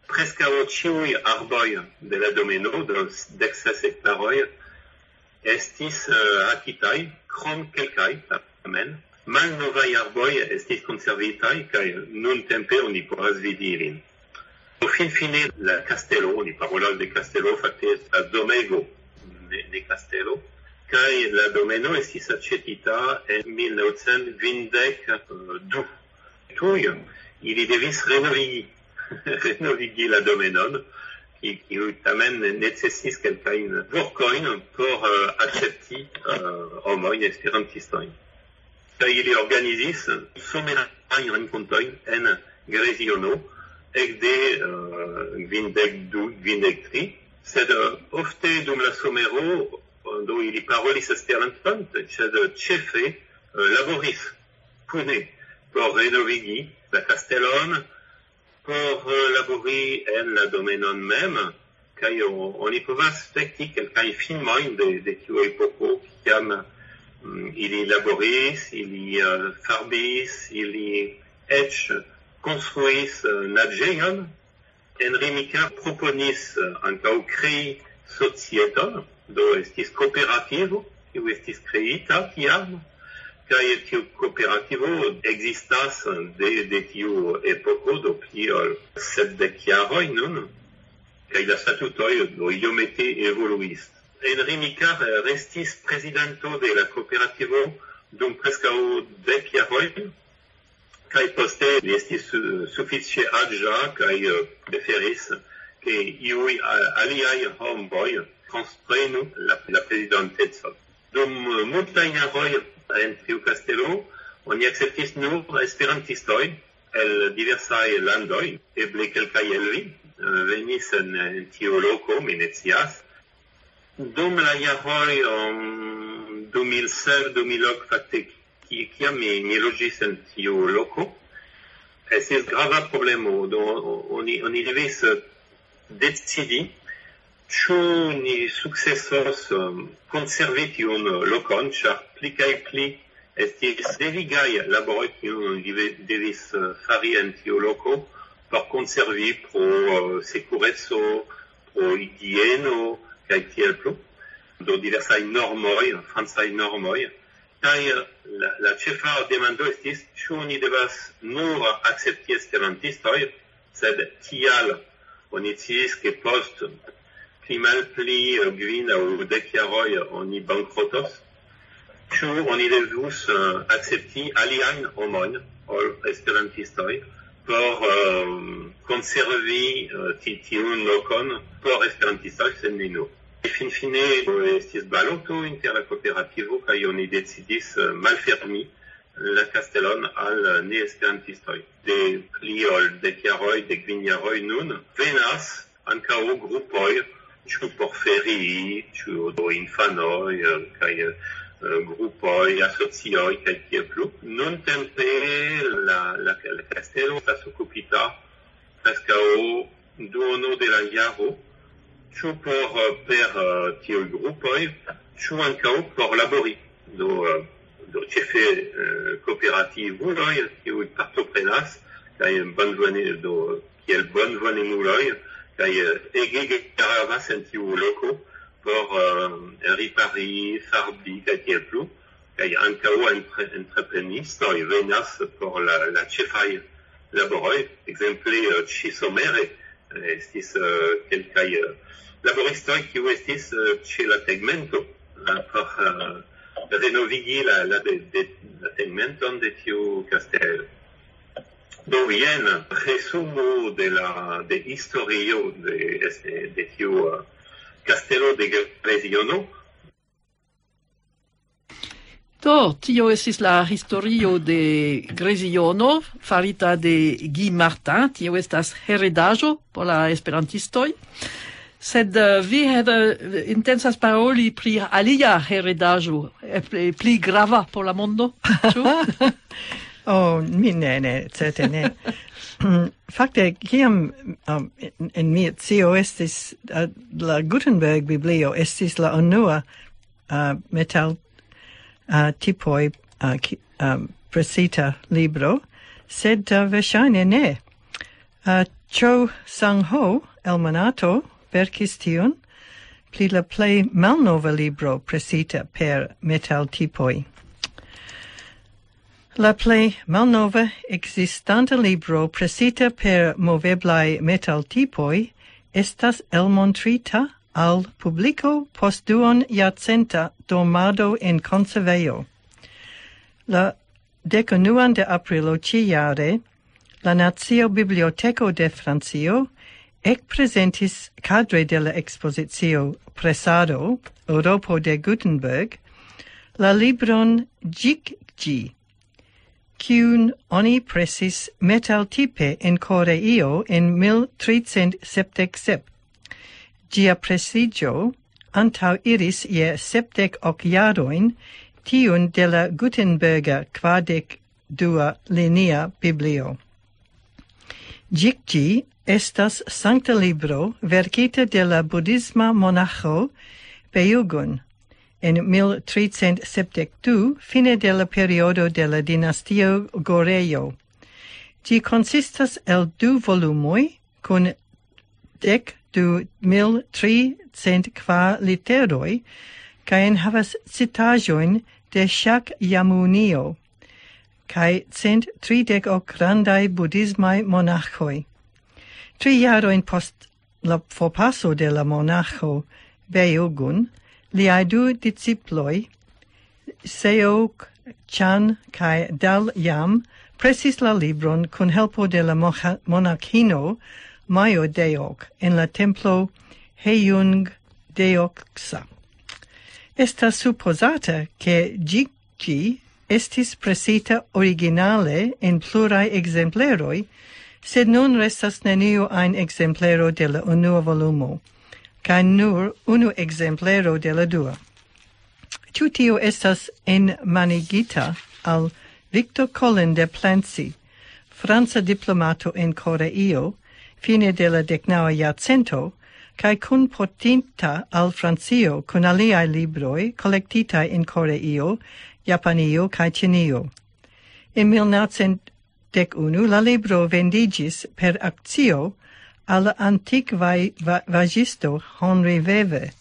Preskaŭ ĉiuj arboj de la domeno, de dek ses hektaroj, estis uh, akitaj, krom kelkaj tamen. Malnovaj arboj estis konservitaj, kaj nuntempe oni povas vidi ilin. Finfine la kastelo, oni parolas de kastelo, fakte estas domego, ne, ne kastelo, kaj la domeno estis aĉetita en mil naŭcent kvindek du. Tuj ili devis renovigi, renovigi la domenon, kiu tamen necesis kelkajn vorkojn por uh, akcepti uh, homojn esperantistojn. Kaj ili organizis somerajn renkontojn en Greziono ekde uh, kvindek du, kvindek tri, sed uh, ofte dum la somero do ili parolis Esperanton, sed ĉefe uh, laboris kune por renovigi la kastelon, por uh, labori en la domenon mem, kaj oni povas spekti kelkajn filmojn de, de tiu epoko, kiam mm, ili laboris, ili uh, farbis, ili eĉ konstruis uh, naĝejon. Enrico Mica proponis uh, ankaŭ krei societon, do estis kooperativo, kiu estis kreita tiam, kaj tiu kooperativo ekzistas de, de tiu epoko, do pli ol sepdek jaroj nun, kaj la statutoj do iomete evoluis. Enrico Mica restis prezidanto de la kooperativo dum preskaŭ dek jaroj, kaj poste li estis uh, sufiĉe aĝa kaj uh, preferis, ke iuj uh, aliaj homoj transprenu la, la prezidantecon. Dum uh, multaj jaroj en tiu kastelo oni akceptis nur esperantistojn el diversaj landoj, eble kelkaj el vi uh, venis en, en tiu loko, mi ne scias. Dum la jaroj um, du mil ses, du mil ok, fakte, ki- kiam mi, mi loĝis en tiu loko, estis grava problemo. Do, oni, oni devis eh, decidi, ĉu ni sukcesos um, konservi tiun lokon, ĉar pli kaj pli estis devigaj laboroj, kiujn oni deve- devis eh, fari en tiu loko por konservi pro eh, sekureco, pro higieno, kaj tiel plu. Do diversaj normoj, francaj normoj. Kaj eh, la, la ĉefa demando estis, ĉu ni devas nur akcepti esperantistojn, sed tial oni sciis, ke post pli malpli eh, kvin aŭ dek jaroj oni bankrotos. Ĉu oni devus eh, akcepti aliajn homojn ol esperantistoj por eh, konservi eh, ti- tiun lokon por esperantistoj, sed ne nur? Finfine estis baloto inter la kooperativo kaj oni decidis eh, malfermi la kastelon al neesperantistoj. De pli ol dek jaroj, dek kvin jaroj nun, venas ankaŭ grupoj, ĉu por ferii, ĉu do infanoj, eh, kaj eh, grupoj, asocioj, kaj tiel plu. Nuntempe la, la, la kastelo estas okupita preskaŭ duono de la jaro, ĉu por eh, per eh, tiuj grupoj, ĉu ankaŭ por labori. Do, eh, do ĉefe eh, kooperativuloj, kiuj partoprenas, kaj bonvone, do, kiel bonvonemuloj, Kaj eh, ege gravas en tiu loko por eh, ripari, farbi kaj tiel plu. Kaj ankaŭ entre, entreprenistoj venas por la, la ĉefaj laboroj. Ekzemple eh, ĉi somere eh, estis eh, kelkaj eh, laboristoj, kiu estis eh, ĉe la tegmento eh, por eh, renovigi la, la, de, de, la tegmenton de tiu kastelo. Do jen resumo de la de historio de, de tiu eh, kastelo de Greziono. Do, tio estis la historio de Greziono, farita de Guy Martin. Tio estas heredaĵo por la esperantistoj. Sed eh, vi Heather intensas paroli pri alia heredaĵo, eh, pli, pli grava por la mondo, ĉu? Oh, mi ne, ne, certe ne. Fakte, kiam um, en, en mia scio estis uh, la Gutenberg Biblio estis la unua uh, metal uh, tipoj uh, ki, um, presita libro, sed uh, verŝajne ne. Uh, Cho Sang Ho, el Monato, verkis tiun pri la plej malnova libro presita per metaltipoj. La plej malnova ekzistanta libro presita per moveblaj metaltipoj estas elmontrita al publiko post duon jarcenta dormado en konservejo. La dekunuan de aprilo ĉijare, la Nacio Biblioteko de Francio ekprezentis kadre de la ekspozicio Presado, Eŭropo de Gutenberg, la libron Ĝikĝi, kiun oni presis metaltipe en Koreio en mil tricent sepdek sep. Ĝia presiĝo antaŭ iris je sepdek ok jarojn tiun de la Gutenberga kvardek dua linia biblio. Ĝikĝi estas sankta libro verkita de la budhisma monaĥo Bejugun en mil tricent sepdek du, fine de la periodo de la dinastio Gorejo. Ĝi konsistas el du volumoj kun dek du mil tricent kvar literoj kaj enhavas citaĵojn de Ŝakjamunio kaj cent tridek ok grandaj budhismaj monaĥoj. Tri jarojn post la forpaso de la monaĥo Bejugun, liaj du disciploj, Seok Chan kaj Dal Yam, presis la libron kun helpo de la moha- monaĥino Majo Deok en la templo Hejung Deoksa. Estas supozata, ke ĝi ĝi estis presita originale en pluraj ekzempleroj, sed nun restas neniu ajn ekzemplero de la unua volumo, kaj nur unu ekzemplero de la dua. Ĉu tio estas enmanigita al Victor Colin de Plancy, franca diplomato en Koreio, fine de la deknaŭa jarcento, kaj kunportinta al Francio kun aliaj libroj kolektitaj en Koreio, Japanio kaj Ĉinio. En mil naŭcent dek unu la libro vendiĝis per akcio al la antikvaj va- vaĝisto Henri Wewe,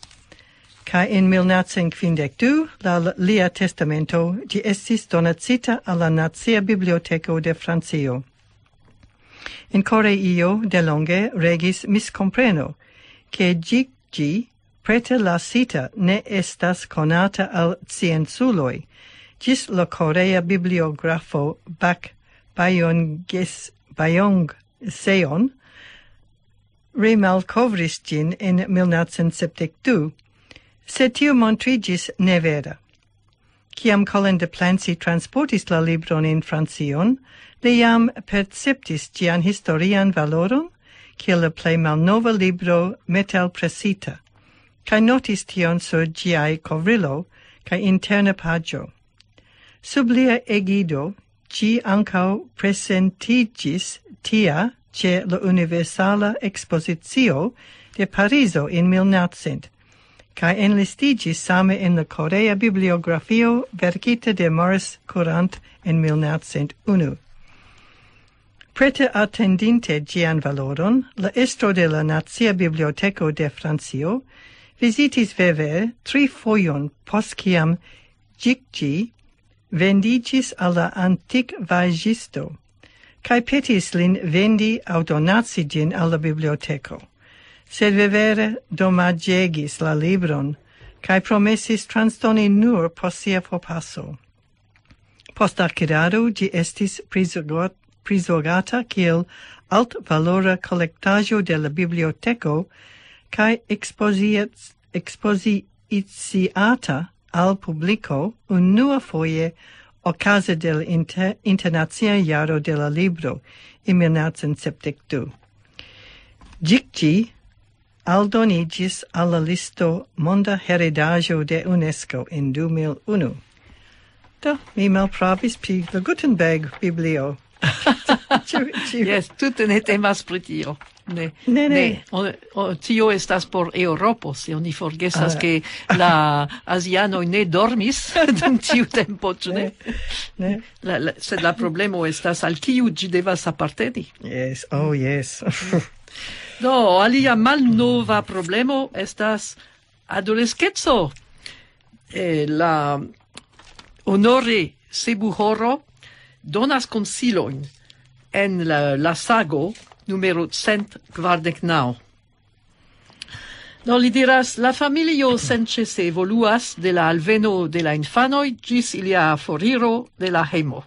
kaj en mil naŭcent kvindek du la lia testamento ĝi estis donacita al la Nacia Biblioteko de Francio. En Koreio delonge regis miskompreno, ke ĝi ĝi preterlasita ne estas konata al scienculoj, ĝis la korea bibliografo Bak Bayonges Bayong Seon remalkovris ĝin en mil naŭcent sepdek du, sed tio montriĝis nevera. Kiam Colin de Plancy transportis la libron en Francion, li jam perceptis ĝian historian valoron kiel la plej malnova libro metalpresita, kaj notis tion sur ĝiaj kovrilo kaj interna paĝo. Sub lia egido ĝi ankaŭ presentiĝis tia ĉe la Universala Ekspozicio de Parizo en mil naŭcent, kaj enlistiĝis same en la Korea Bibliografio verkita de Maurice Courant en mil naŭcent unu. Prete atendinte ĝian valoron, la estro de la Nacia Biblioteko de Francio vizitis Weber tri fojon post kiam ĝi vendiĝis al la antikvaĵisto, kaj petis lin vendi aŭ donaci ĝin al la biblioteko. Sed Weber domaĝegis la libron, kaj promesis transdoni nur post sia forpaso. Post akirado ĝi estis prizogot-, prizorgata kiel altvalora kolektaĵo de la biblioteko, kaj ekspoziec-, ekspoziciata al publiko unua foje okaze de la inter-, Internacia Jaro de la Libro en mil naŭcent sepdek du. Ĝi aldoniĝis al la listo Monda Heredaĵo de UNESCO en du mil unu. Do, mi malpravis pri la Gutenberg Biblio. Ĉu, ĉu... Jes, tute ne temas pri tio. Ne, Ne, ne. O, o, tio estas por Eŭropo, se oni forgesas, Ah. Ke la azianoj ne dormis dum tiu tempo, ĉu ne? Ne. La, la, sed la problemo estas, al kiu ĝi devas aparteni. Yes, oh yes. Do, alia malnova problemo estas adoleskeco. Eh, la Honore Sebuhoro donas konsilojn en la, la sago numero cent kvardek naŭ. Do, li diras: "La familio senĉese evoluas de la alveno de la infanoj ĝis ilia foriro de la hejmo.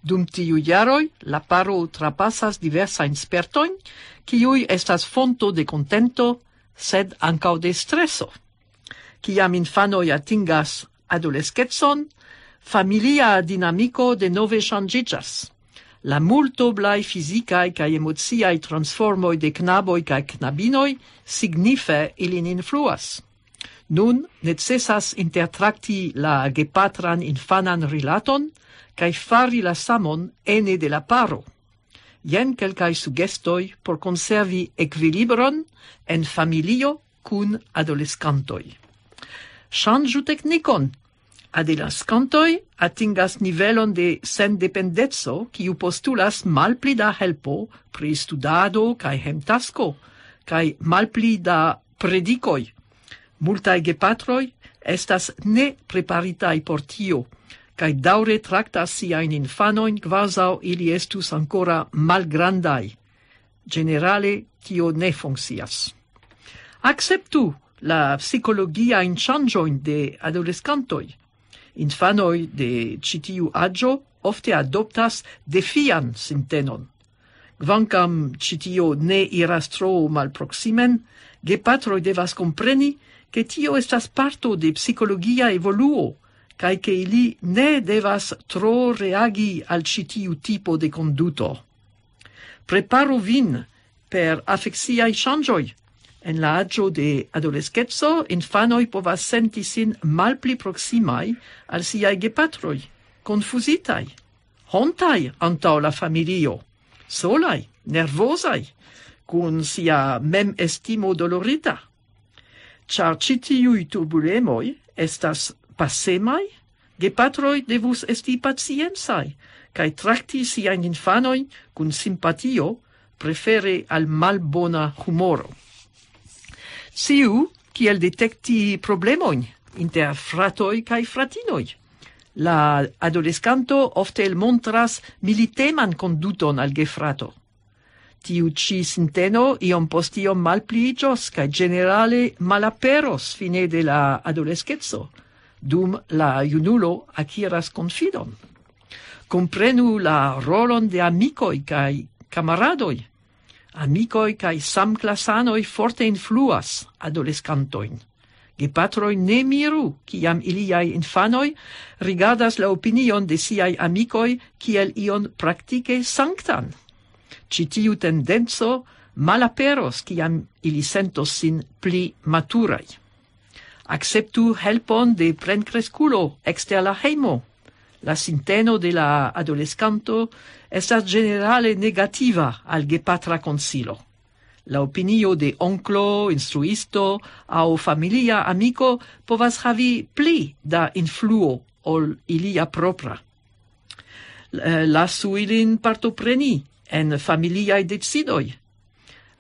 Dum tiuj jaroj la paro trapasas diversajn spertojn, kiuj estas fonto de kontento, sed ankaŭ de streso. Kiam infanoj atingas adoleskecon, familia dinamiko denove ŝanĝiĝas. La multoblaj fizikaj kaj emociaj transformoj de knaboj kaj knabinoj signife ilin influas. Nun necesas intertrakti la gepatran infanan rilaton kaj fari la samon ene de la paro. Jen kelkaj sugestoj por konservi ekvilibron en familio kun adoleskantoj. Ŝanĝu teknikon. Adoleskantoj atingas nivelon de sendependeco, kiu postulas malpli da helpo pri studado kaj hemtasko, kaj malpli da predikoj. Multaj gepatroj estas nepreparitaj por tio, kaj daŭre traktas siajn infanojn, kvazaŭ ili estus ankoraŭ malgrandaj. Ĝenerale tio ne funkcias. Akceptu la psikologiajn ŝanĝojn de adoleskantoj. Infanoj de ĉi tiu aĝo ofte adoptas defian sintenon. Kvankam ĉi tio ne iras tro malproksimen, gepatroj devas kompreni, ke tio estas parto de psikologia evoluo, kaj ke ili ne devas tro reagi al ĉi tiu tipo de konduto. Preparu vin per afeksiaj ŝanĝoj. En la aĝo de adoleskeco infanoj povas senti sin malpli proksimaj al siaj gepatroj, konfuzitaj, hontaj antaŭ la familio, solaj, nervozaj, kun sia memestimo dolorita. Ĉar ĉi tiuj turbulemoj estas pasemaj, gepatroj devus esti paciencaj kaj trakti siajn infanojn kun simpatio, prefere al malbona humoro. Sciu kiel detekti problemojn inter fratoj kaj fratinoj. La adoleskanto ofte elmontras militeman konduton al gefrato. Tiu ĉi sinteno iom post iom malpliiĝos kaj ĝenerale malaperos fine de la adoleskeco, dum la junulo akiras konfidon. Komprenu la rolon de amikoj kaj kamaradoj. Amikoj kaj samklasanoj forte influas adoleskantojn. Gepatroj ne miru, kiam iliaj infanoj rigardas la opinion de siaj amikoj kiel ion praktike sanktan. Ĉi tiu tendenco malaperos, kiam ili sentos sin pli maturaj. Akceptu helpon de plenkreskulo ekster la hejmo. La sinteno de la adoleskanto estas ĝenerale negativa al gepatra konsilo. La opinio de onklo, instruisto aŭ familia amiko povas havi pli da influo ol ilia propra. L-, lasu ilin partopreni en familiaj decidoj.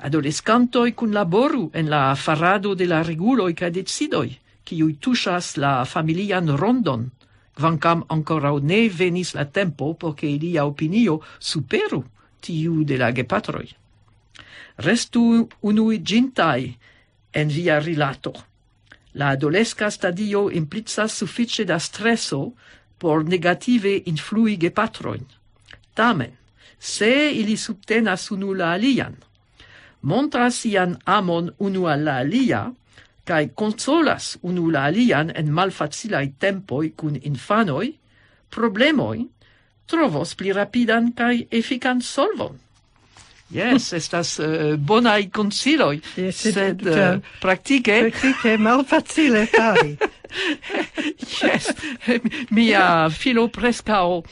Adoleskantoj kunlaboru en la farado de la reguloj kaj decidoj, kiuj tuŝas la familian rondon, kvankam ankoraŭ ne venis la tempo por ke ilia opinio superu tiu de la gepatroj. Restu unuiĝintaj en via rilato. La adoleska stadio implicas sufiĉe da streso por negative influi gepatrojn. Tamen, se ili subtenas unu la alian, montras sian amon unu al la alia, kaj konsolas unu la alian en malfacilaj tempoj kun infanoj, problemoj trovos pli rapidan kaj efikan solvon. Jes, estas uh, bonaj konsiloj, yes, sed uh, praktike... Praktike malfacile fari. Jes, mia filo preskaŭ uh,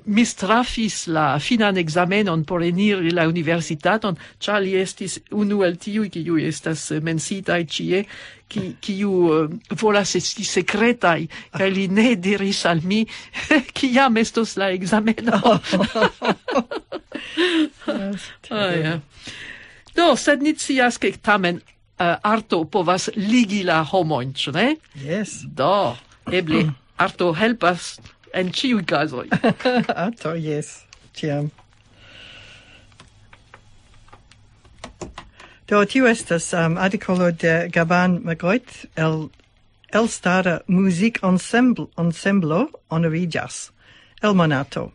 mistrafis la finan ekzamenon por eniri la universitaton, ĉar li estis unu el tiuj, kiuj estas menciitaj ĉie, ki, kiu uh, volas esti sekretaj, kaj li ne diris al mi, kiam estos la ekzameno. Oh, ja. Do, sed ni scias, ke tamen uh, arto povas ligi la homojn, ĉu ne? Yes. Do, eble arto helpas en ĉiuj kazoj. Arto, yes, ĉiam. Do, tiu estas um, artikolo de Gaban Magoit el elstara muzik-ensemblo honoriĝas el Monato.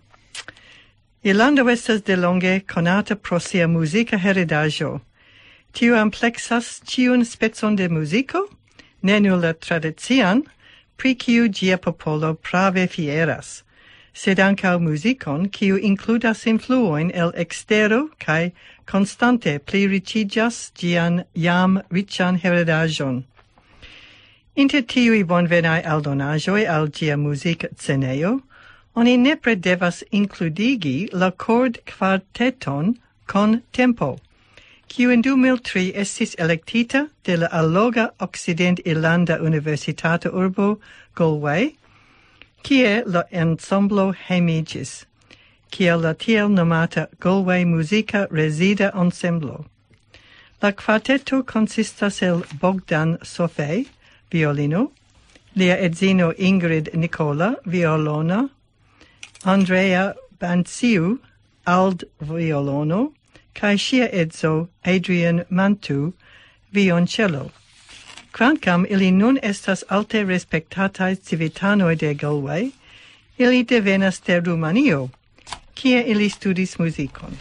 Irlando estas delonge konata pro sia muzika heredaĵo. Tiu ampleksas ĉiun specon de muziko, ne nur la tradician, pri kiu ĝia popolo prave fieras, sed ankaŭ muzikon, kiu inkludas influojn el ekstero kaj konstante pliriĉiĝas ĝian jam riĉan heredaĵon. Inter tiuj bonvenaj aldonaĵoj al ĝia muzikcenejo, oni nepre devas inkludigi la kordkvarteton Con Tempo, kiu en du mil tri estis elektita de la alloga okcident-irlanda universitata urbo Galway, kie la ensemblo hejmiĝis, kiel la tiel nomata Galway Muzika Rezida Ensemblo. La kvarteto konsistas el Bogdan Sofej, violino, lia edzino Ingrid Nicola, violona, Andrea Banciu, alt violono, kaj ŝia edzo Adrian Mantu, violonĉelo. Kvankam ili nun estas alte respektataj civitanoj de Galway, ili devenas de Rumanio, kie ili studis muzikon.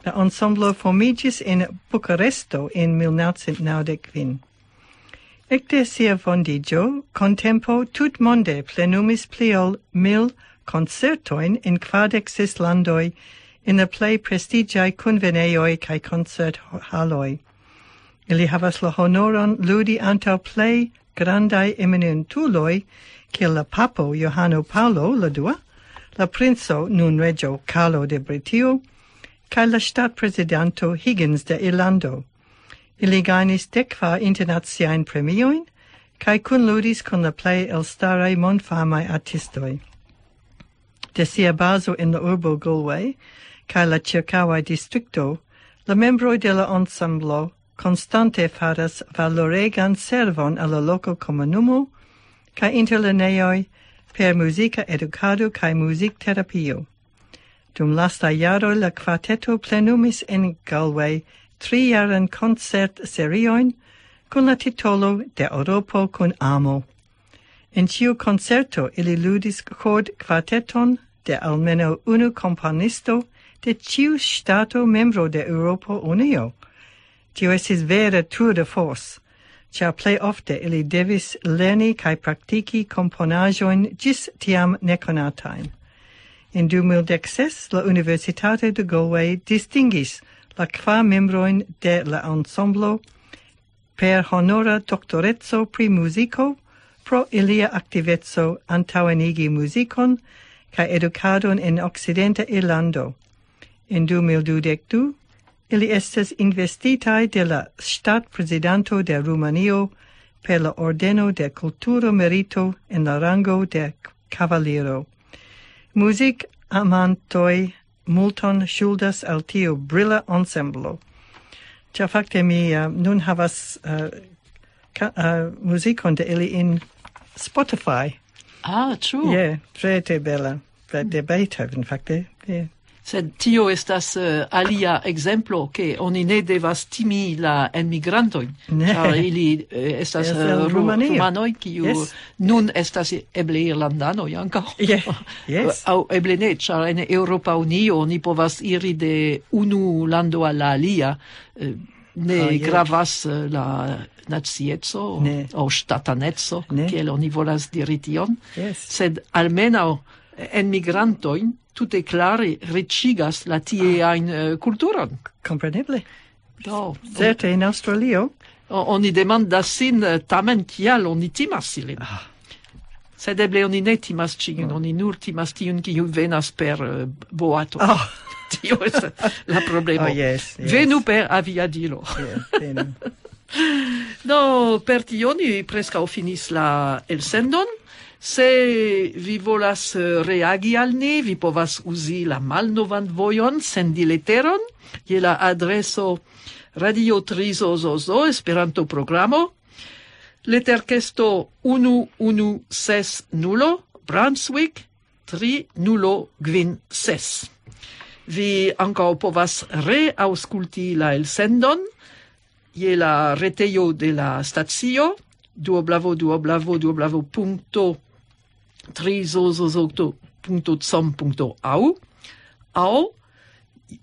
La ensemblo formiĝis en Bukaresto en mil naŭcent naŭdek kvin. Ekde sia fondiĝo, Contempo tutmonde plenumis pli ol mil koncertojn en kvardek ses landoj, en la plej prestiĝaj kunvenejoj kaj koncerthaloj. Ili havas la honoron ludi antaŭ plej grandaj eminentuloj, kiel la papo Johano Paŭlo la dua, la princo, nun reĝo Karlo de Britio, kaj la ŝtatprezidanto Higgins de Irlando. Ili gajnis dek kvar internaciajn premiojn, kaj kunludis kun la plej elstaraj mondfamaj artistoj. De sia bazo en la urbo Galway, kaj la ĉirkaŭaj distrikto, la membroj de la ensemblo konstante faras valoregan servon al la loka komunumo, kaj interlernejoj per muzika edukado kaj muzikterapio. Dum lasta jaro la kvarteto plenumis en Galway trijaran koncertseriojn kun la titolo De Eŭropo kun amo. En ĉiu koncerto ili ludis kordkvarteton de almenaŭ unu komponisto de ĉiu ŝtato membro de Eŭropa Unio. Tio estis vera tour de force, ĉar plej ofte ili devis lerni kaj praktiki komponaĵojn ĝis tiam nekonatajn. En du mil dek ses la Universitato de Galway distingis la kvar membrojn de la ensemblo per honora doktoreco pri muziko pro ilia aktiveco antaŭenigi muzikon kaj edukadon en Okcidenta Irlando. En du mil dudek du ili estis investitaj de la ŝtatprezidanto de Rumanio per la Ordeno de Kulturo Merito en la rango de kavaliro. Muzikamantoj multon ŝuldas al tiu brila ensemblo. Ĉar fakte mi uh, nun havas uh, ka, uh, muzikon de ili in Spotify. Ah, true. Yeah, tre tre bela. De Beethoven, fakte. Yeah. Sed tio estas uh, alia ekzemplo, ke oni ne devas timi la enmigrantojn, ĉar ili uh, estas uh, rumanoj, kiu yes. Nun estas eble irlandanoj ankaŭ. Yes. Yes. Aŭ eble ne, ĉar en Eŭropa Unio oni povas iri de unu lando al la alia. Uh, ne ah, gravas uh, la nacieco aŭ ŝtataneco, kiel oni volas diri tion, yes. Sed almenaŭ enmigrantojn tute klare riĉigas la tieajn ah. Kulturon. Kompreneble. Do, certe en Aŭstralio. Oni demandas sin eh, tamen kial oni timas ilin. Ah. Sed eble oni ne timas ĉiun, oh. Oni nur timas tiun, kiu venas per uh, boato. Oh. Tio estas la problemo. Oh, yes, yes. Venu per aviadilo. Yeah, venu. Do, per tio ni preskaŭ finis la elsendon. Se vi volas eh, reagi al ni, vi povas uzi la malnovan vojon, sendi leteron je la adreso radio trizozozo Esperanto programo, leterkesto unu unu ses nulo, Brunswick tri nulo kvin ses. Vi ankaŭ povas reaŭskulti la elsendon je la retejo de la stacio, duoblavo duoblavo duoblavo punkto trizozozo punkto com punkto au, au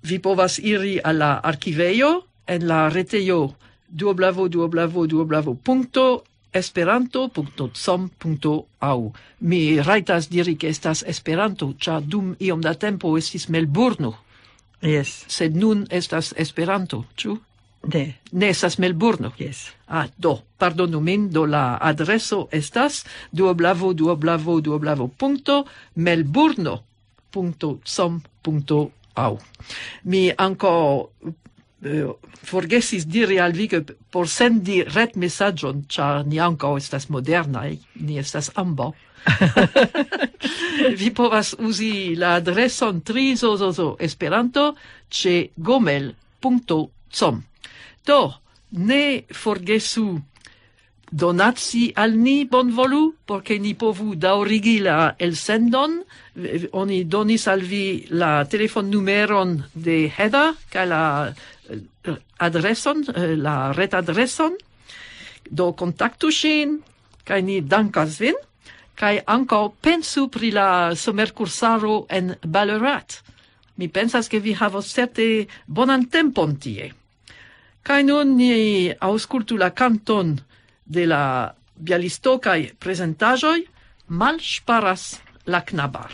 vi povas iri al la arkivejo en la retejo duoblavo duoblavo duoblavo punkto esperanto punkto com punkto au. Mi rajtas diri, ke estas Esperanto, ĉar dum iom da tempo estis Melburno. Yes. Sed nun estas Esperanto, ĉu? Ne. Ne estas Melburno. Yes. Ah, do, pardonu min, do la adreso estas duoblavo duoblavo duoblavo punkto melburno punkto com punkto au. Mi ankaŭ eh, forgesis diri al vi, ke por sendi retmesaĝon, ĉar ni ankaŭ estas modernaj, ni estas ambaŭ. Vi povas uzi la adreson trizozozo Esperanto ĉe gomel punkto com. Do, ne forgesu donaci al ni bonvolu, por ke ni povu daŭrigi la elsendon. Oni donis al vi la telefonnumeron de Heda kaj la eh, adreson, eh, la retadreson. Do kontaktu ŝin, kaj ni dankas vin, kaj ankaŭ pensu pri la somerkursaro en Ballarat. Mi pensas, ke vi havos certe bonan tempon tie. Kaj nun ni aŭskultu la kanton de la bialistokaj prezentaĵoj, Malŝparas la knabar.